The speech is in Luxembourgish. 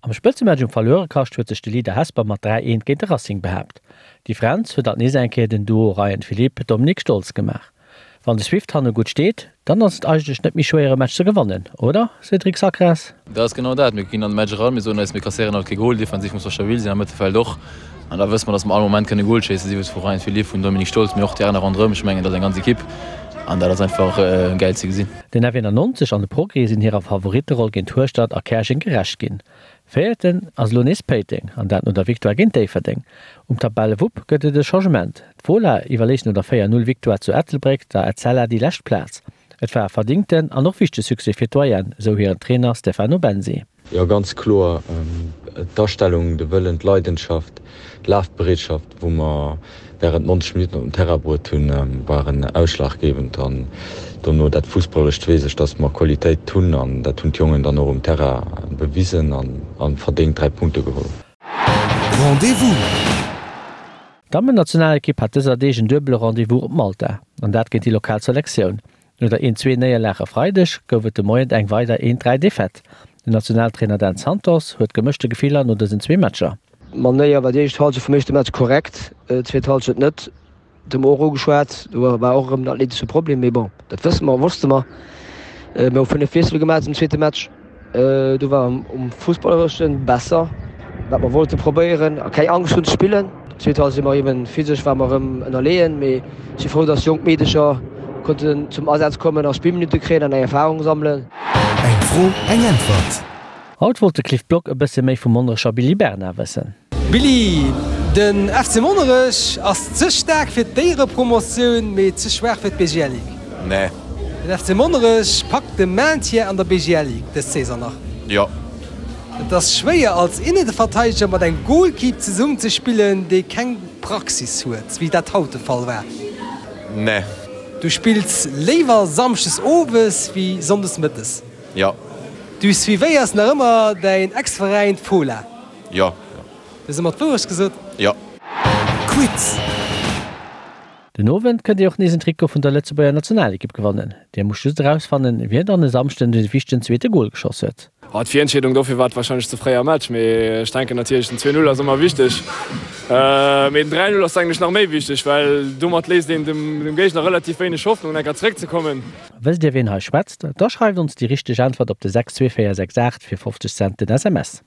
Am Spëtzematch um Verluerekascht huet sech de Leader Hesper mat 3, 1 géint de Racing behaapt. D'Differenz huet alt nees eng Kéier den Duo Ryan Philippe, Dominique Stolz gemaach. Wann de Swift hanne gutt steet, dann ass et eigentlech net méi schwéier e Match ze gewannen, oder Cédric Sacras? Dat ass genau dat. Mir ginn an de Match eran, mir soen eis, mir kasséieren haut kee Gol, defensiv muss mer stabil sinn, am Mëttelfeld och. An da wësse mer, datt mer all Moment kënne Gol schéissen, sief et vu Ryan Philippe, vun Dominique Stolz, mee och déi aner ronderëm. Ech mengen, dat ass eng ganz Ekipp an dat ass einfach gäil ze gesinn. Den F91 an de Progrès sinn hirer Favoritteroll géint Hueschtert a Käerjeng gerecht ginn. Véierten ass elo nees Péiteng, an dat no der Victoire géint Déifferdeng. Um Tabellewupp gëtt et e Changement, D'Fola iwwerléisst no der 4, 0 Victoire zu Ettelbréck der Etzella déi lescht Plaz. Et war e verdingten an och wichtege Succès fir d'Doyenne, esou hiren Trainer Stefano Bensi. Jo, ganz kloer. D'Astellung, de Wëllen, d'Leidenschaft, d'Lafbereetschaft, wou mer während 90 Minutten op den Terrain bruet hunn, waren ausschlaggebend. An dono dat Fussballerescht weess ech, dass mer Qualitéit hunn an dat hunn d'Jongen dann och um Terrain bewisen an verdéngt 3 Punkte geholl. Rendez-vous! D'Dammennationalekipp hat dëser Deeg en duebele Rendez-vous op Malta, an dat géint déi lokal Selektioun. No der 1, 2 Néierlag e Freideg gouf et de Moien eng weider 1, 3 Defaite. Den Nationaltrainer Dan Santos huet gemëschte Gefiller no dësen zwee Matcher. D'Manéier war déi éischt Halschent vum éischte Match korrekt, d'zweet Halschent net. Dat hu mer och ugeschwat, do war och erëm den athletesche Problem, mee bon, dat wësse mer, wosste mer. Mir hu 5 Wiessele gemaach zum zweete Match. Do war um Fussballereschen besser, wat mer wollte probéieren a keng Angscht hunn ze spillen. Zweet Halschent si mer eben physesch war mer erëm ënnerleeën, mee ech si frou, dass jonk Meedecher konnten zum Asaz kommen a Spillminutte kréien an eng Erfarung sammelen. Eng Fro, eng Äntwert. Haut wollt de Cliff Block e bësse méi vum Monnerecher Billy Bernard wëssen. Billy, den FC Monnerech ass ze staark fir d'Éierepromotioun, mee ze schwaach fir d'BGL Ligue. Nee. Den FC Monnerech packt de Maintien an der BGL Ligue dës Saison nach. Jo. Et ass schwéier als Inneverteideger mat engem Golkipp zesummen ze spillen, dee keng Praxis huet, wéi dat haut de Fall war. Nee. Du spills léiwer Samschdes owes wéi Sonndes mëttes. Jo. Du suivéiers nach ëmmer däin Ex-Veräin d'Fola? Jo. Du hues ëmmer d'Wourecht gesot? Jo. Quiz! Den Owend kënnt Dir och nees en Trikot vun der Lëtzebuerger Nationalekipp gewannen. Dir musst just erausfannen, wien dann e Samschden de wichtegen zweete Gol geschoss huet. Oh, d'Virentscheedung dofir war et wahrscheinlech ze fréi am Match, mee ech denken natierlech den 2, 0 ass ëmmer wichteg. Mee den 3, 0 ass eigentlech nach méi wichteg, well domat léisst een dem Géigner relativ wéineg Hoffnung enker zeréckzekommen. Wësst Dir ween hei schwätzt? Da schreift ons déi richteg Äntwert op de 62468 fir 50 Cent den SMS.